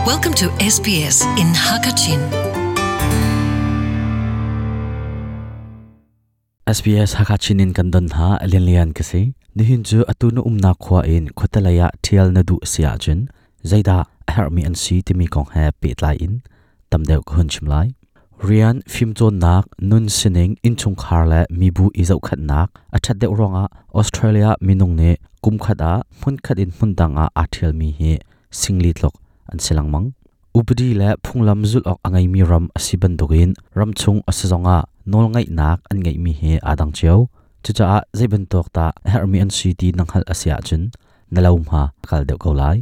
Welcome to SBS in Hakachin. SBS Hakachin in kan don hna lianlian ka si. Nihin cu atu na umnak khua in khuatelei ah ṭhial na duh si ahcun zeidah a herhmi an si timi kong he pehtlai in tam deuh ka hun chim lai. Rian, fimcawnnak, nun sining, innchungkhar le mibu i zohkhenhnak a ṭhat deuh ruangah Australia minung nih kumkhat ah hmunkhat in hmundang ah aa ṭhialmi hi singli tluk an si lengmang. Upadi le phunglam zulh awk a ngeimi ram a si bantukin ramchung a si zongah nawlngeihnak an ngeihmi hi aa dang cio. Cucaah zei bantuk dah a herhmi an si ti na hngalh a si ahcun na lo hma a kal deuh ko lai.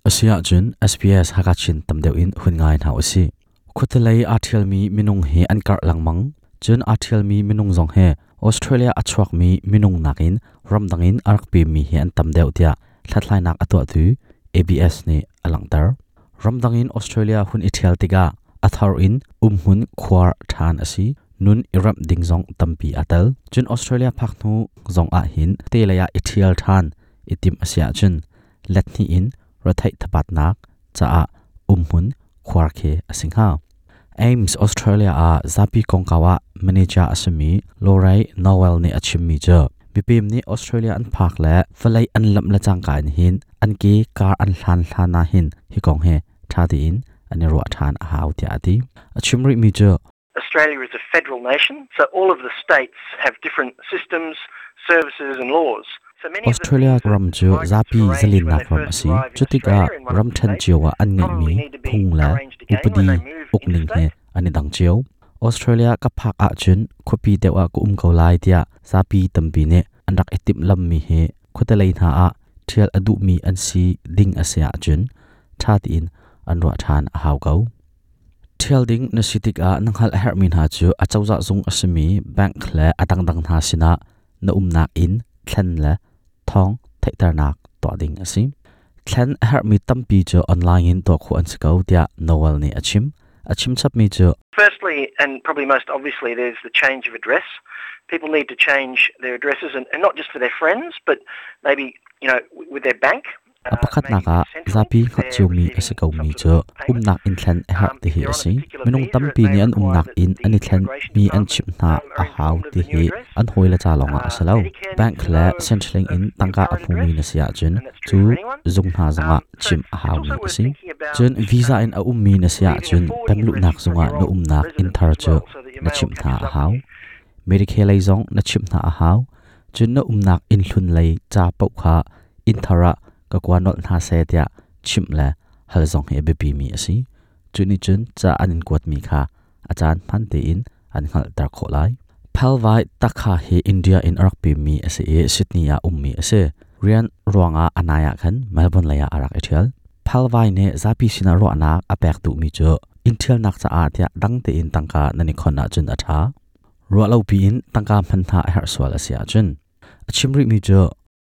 Asiahcun SBS Hakachin tam deuh in hun ngai hna usih. Khuatelei aa ṭhialmi minung hi an karh lengmang. Cun aa ṭhialmi minung zong hi Australia a chuakmi minung nakin ramdang in a rak pemmi hi an tam deuh tiah hlathlainak a tuahtu ABS nih a langhter. Ramdang in Australia hun i ṭhial tikah a thar in umhmun khuar ṭhan a si. Nun i remh ding zong tampi aa tel. Cun Australia phak hnu zong ahhin te lei ah i ṭhial ṭhan i timh a si ahcun let hnih in retheih thabatnak caah umhmun khuar khi a si hnga. Ames, Australia ah zapi kongkau ah manager a simi Lorraine Noel nih a chimmi cu mipem nih Australia an phak le vawlei an lamh le cangka in hin an ke kar an hlan hlan ah hin hi kong hi ṭha tein an i ruah ṭhan a hau tiah a ti. A chim rihmi cu Australia is a federal nation, so all of the states have different systems, services and laws. Australia ram cu zapi zalennak ram a si. Cutikah ramṭhen cio ah an ngeihmi phung le upadi ukning he an i dang cio. Australia ka phak ahcun khuapi deuh ah ka um ko lai tiah zapi tampi nih an rak i timhlammi hi khuatelei hna ah ṭhial a duhmi an si ding a si ahcun ṭha tein an ruah ṭhan a hau ko. Ṭhial ding na si tikah na hngalh a herhmi hna cu acozah zung a simi bank le a dangdang hna sinah na umnak inn thlen le thawng theihternak tuah ding a si. Thlen a herhmi tampi cu online in tuah khawh an si ko tiah Noel nih a chim. A chim chapmi cu Firstly, and probably most obviously, there's the change of address. People need to change their addresses and, and not just for their friends, but maybe, you know, with their bank. A pakhatnak ah zapi hngalh ciomi a si komi cu umnak inn thlen a herh ti hi a si. Minung tampi nih an umnak inn an i thlenmi an chimh hna a hau ti hi an hawile ca lawngah a si lo. Bank le Centrelink in tangka a hmumi na si ahcun cu zung hna zongah chimh a haumi a si. Cun visa in a ummi na si ahcun pemluhnak zungah na umnak inn thar cu na chimh hna a hau. Medicare lei zong na chimh hna a hau. Cun na umnak inn hlun lei ca paoh kha inn thar ah ka kua nolh hna seh tiah chimh le hal zong hi a biapimi a si. Cu nih cun ca an in kuatmi kha a caan hman tein an hngalhter khawh lai. Phalvai Takha hi India in a rak pemmi a si i Sydney ah ummi a si. Rian ruangah a nai ah khan Melbourne lei ah a rak i ṭhial. Phalvai nih zapi sinah ruahnak a pek duhmi cu inn ṭhialnak caah tiah dang tein tangka nan i khon ahcun a ṭha. Ruahlopi in tangka hman hna a herh sual a si ahcun. A chim rihmi cu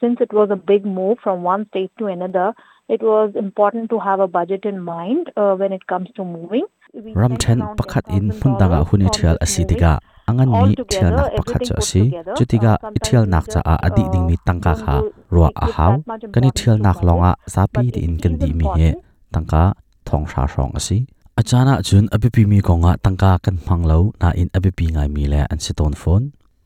Since it was a big move from one state to another, it was important to have a budget in mind uh, when it comes to moving. Ramṭhen pakhat in hmundang ah hun i ṭhial a si tikah a nganmi ṭhialnak pakhat cu a si. Cu tikah i ṭhialnak caah a dih dingmi tangka kha ruah a hau. Kan i ṭhialnak lawngah zapi tein kan dihmi hi tangka thonghra hrawng a si. A caan ahcun a biapimi kongah tangka kan hmang lo nain a biapi ngaimi le an si tawn fawn.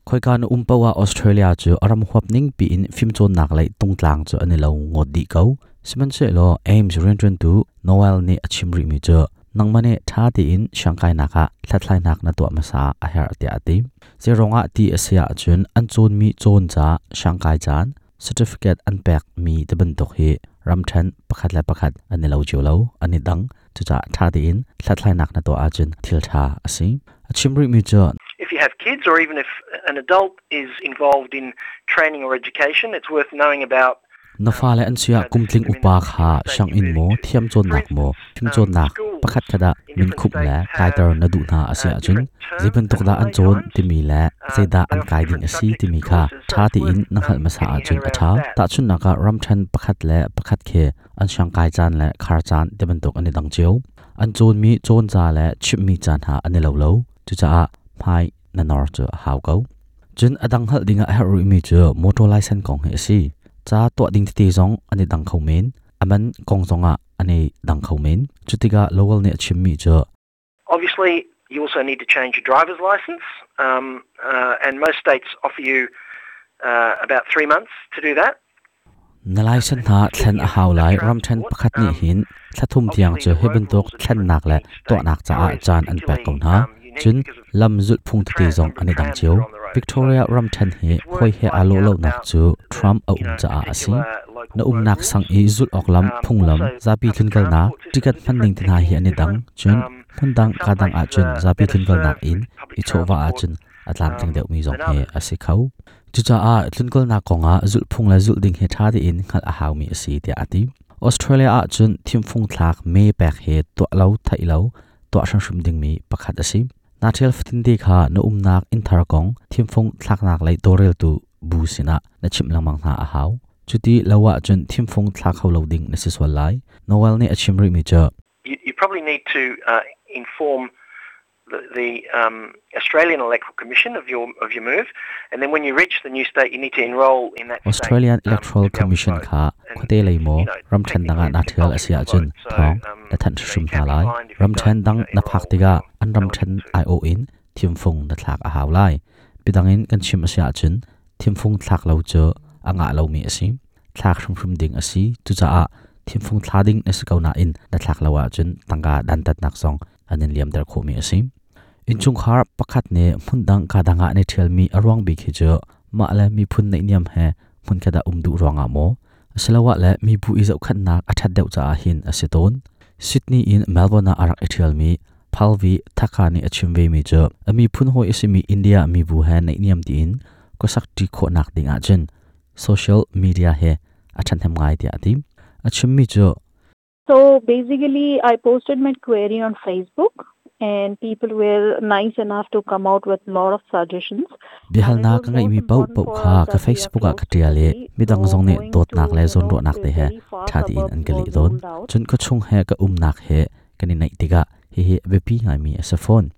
Khoika na um paoh ah Australia cu a ram huap ning piin fimcawnnak lei tungtlang cu an i lo ngawt dih ko. Sihmanhsehlaw Ames rianṭuantu Noel nih a chim rihmi cu nangmah nih ṭha tein siangkainak ah hlathlainak na tuah hmasa a herh tiah a ti. Zeiruangah ti a si ahcun an cawnmi cawn ca siangkai caan certificate an pekmi ti bantuk hi ramṭhen pakhat le pakhat an i lo cio lo, an i dang. Cucaah ṭha tein hlathlainak na tuah ahcun thil ṭha a si. A chim rihmi cu If you have kids or even if an adult is involved in training or education, it's worth knowing about Na fale an si ah kumtling upa kha sianginn maw, thiamcawnnak maw, fimcawnnak pakhat khat ah minkhumh le kaiter na duh hna a si ahcun zeibantuk dah an cawn timi le zeidah an kai ding a si timi kha ṭha tein na hngalh hmasa ahcun a ṭha. Tahchunhnak ah ramṭhen pakhat le pakhat khi an siangkai caan le khar caan ti bantuk an i dang cio. An cawnmi cawn ca le chimhmi ca hna an i lo lo. Cucaah hmai na nor cu a hau ko. Cun a dang hngalh dingah a herh rihmi cu motor license kong hi a si. Ca tuah ding tete zong an i dang kho men. A man kong zongah an i dang kho men. Cutikah Lowell nih a chimmi cu Obviously, you also need to change your driver's license, and most states offer you about 3 months to do that. Na license hna thlen a hau lai. Ramṭhen pakhat nih hin thla thum tiang cu hi bantuk thlennak le tuahnak caah caan an pek ko hna. Cun lam zulhphung tete zong an i dang cio. Victoria ramṭhen hi hawi he aa lawh lonak cu Trump a um caah a si. Na umnak sang i zulh awk lam, phunglam, zapi tlunkalnak, ticket hman ning te hna hi an i dang. Cun hmundang kaa dang ahcun zapi tlunkalnak in i chawhvah ahcun a tlamtling deuhmi zong hi a si kho. Cucaah tlunkalnak kongah zulhphung le zulh ding hi ṭha tein hngalh a haumi a si tiah a ti. Australia ahcun thimfung thlak mee pek hi tuah lo theih lo tuah hrimhrim dingmi pakhat a si. Naa ṭhial fatinte kha na umnak innthar kong thimfung thlaknak lei tawlreltu bu sinah na chimh lengmang hna a hau. Cuti lo ahcun thimfung thla kho lo ding na si sual lai. Noel nih a chim rihmi cu You probably need to inform the Australian Electoral Commission of your move, and then when you reach the new state, you need to enroll in that state. Australian Electoral Commission kha khuate lei maw ramṭhen dang ah naa ṭhial a si ahcun thawng na thanh hrim hna lai. Ramṭhen dang na phak tikah an ramṭhen aiawh in thimfung na thlak a hau lai. Bidang in kan chim a si ahcun thimfung thlak lo cu a ngah lomi a si. Thlak hrimhrim ding a si. Cucaah thimfung thla ding na si ko nain na thlak lo ahcun tangka dantatnak zong an in liamter khawhmi a si. Innchungkhar pakhat nih hmundang ka dang ah an i ṭhialmi a ruang bik hi cu mah le miphun naihniam he hmunkhat ah um duh ruangah maw asiloah le mibu i zohkhenhnak a ṭhat deuh caah hin a si tawn. Sydney in Melbourne ah a rak i ṭhialmi Palvi Thakha nih a chim vemi cu a miphun hawi a simi India mibu he naihniam tiin khuasak ṭi khawhnak ding ahcun social media he a ṭhahnem ngai tiah a ti. A chimmi cu So basically, I posted my query on Facebook and people were nice enough to come out with a lot of suggestions. Biahalnak ka ngeihmi paohpaoh kha ka Facebook ah ka ṭial i midang zong nih dawtnak le zawnruahnak te he ṭha tein an ka leh tawn. Cun khuachung he ka umnak he kan i naih tikah hihi a biapi ngaimi a si fawn.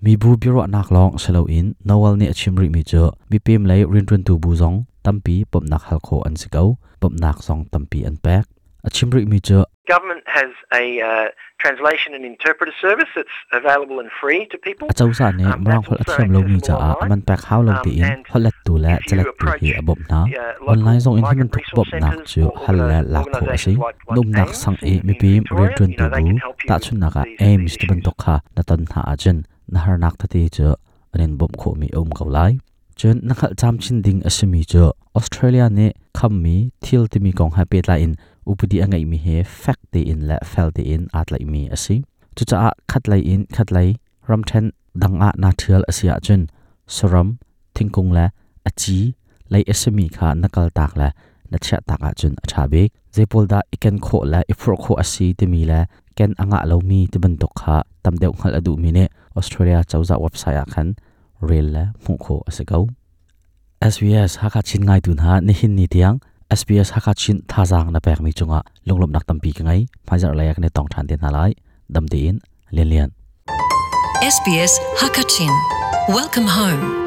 Mibu biaruahnak lawng si loin Noel nih a chim rihmi cu mipem lei rianṭuantu bu zong tampi bawmhnak hal khawh an si ko. Bawmhnak zong tampi an pek. A chim rihmi cu Government has a translation and interpreter service that's available and free to people. Acozah nih Mirang holh a thiam lomi caah a man pek hau lo tiin holhlettu le calettu hi a bawmh hna. Online zong in hi bantuk bawmhnak cu hal le lak khawh a si. Na umnak sang i mipi rianṭuantu bu, tahchunhnak ah AIMS ti bantuk kha na ton hna ahcun na harnak tete cu an in bawmh khawhmi a um ko lai. Cun na hngalh camcin ding a simi cu Australia nih khammi thil timi kong he pehtlai in upadi a ngeihmi he fek tein le fel tein aa tlaihmi a si. Cucaah khatlei in khatlei ramṭhen dang ah naa ṭhial a si ahcun saram, thingkung le a ci lei a simi kha na kaltak le na chiahtak ahcun a ṭha bik. Zeipawl dah i ken khawh le i phurh khawh a si timi le ken a ngah lomi ti bantuk kha tam deuh hngalh a duhmi nih Australia cozah website ah khan rel le hmuh khawh a si ko. SBS Hakha Chin ngaitu hna nihin ni tiang SBS Hakha Chin thazaang na pekmi cungah lunglawmhnak tampi ka ngei. Hmaizarh lei ah kan i tong ṭhan te hna lai. Dam tein Lian Lian. SBS Hakachin. Welcome home.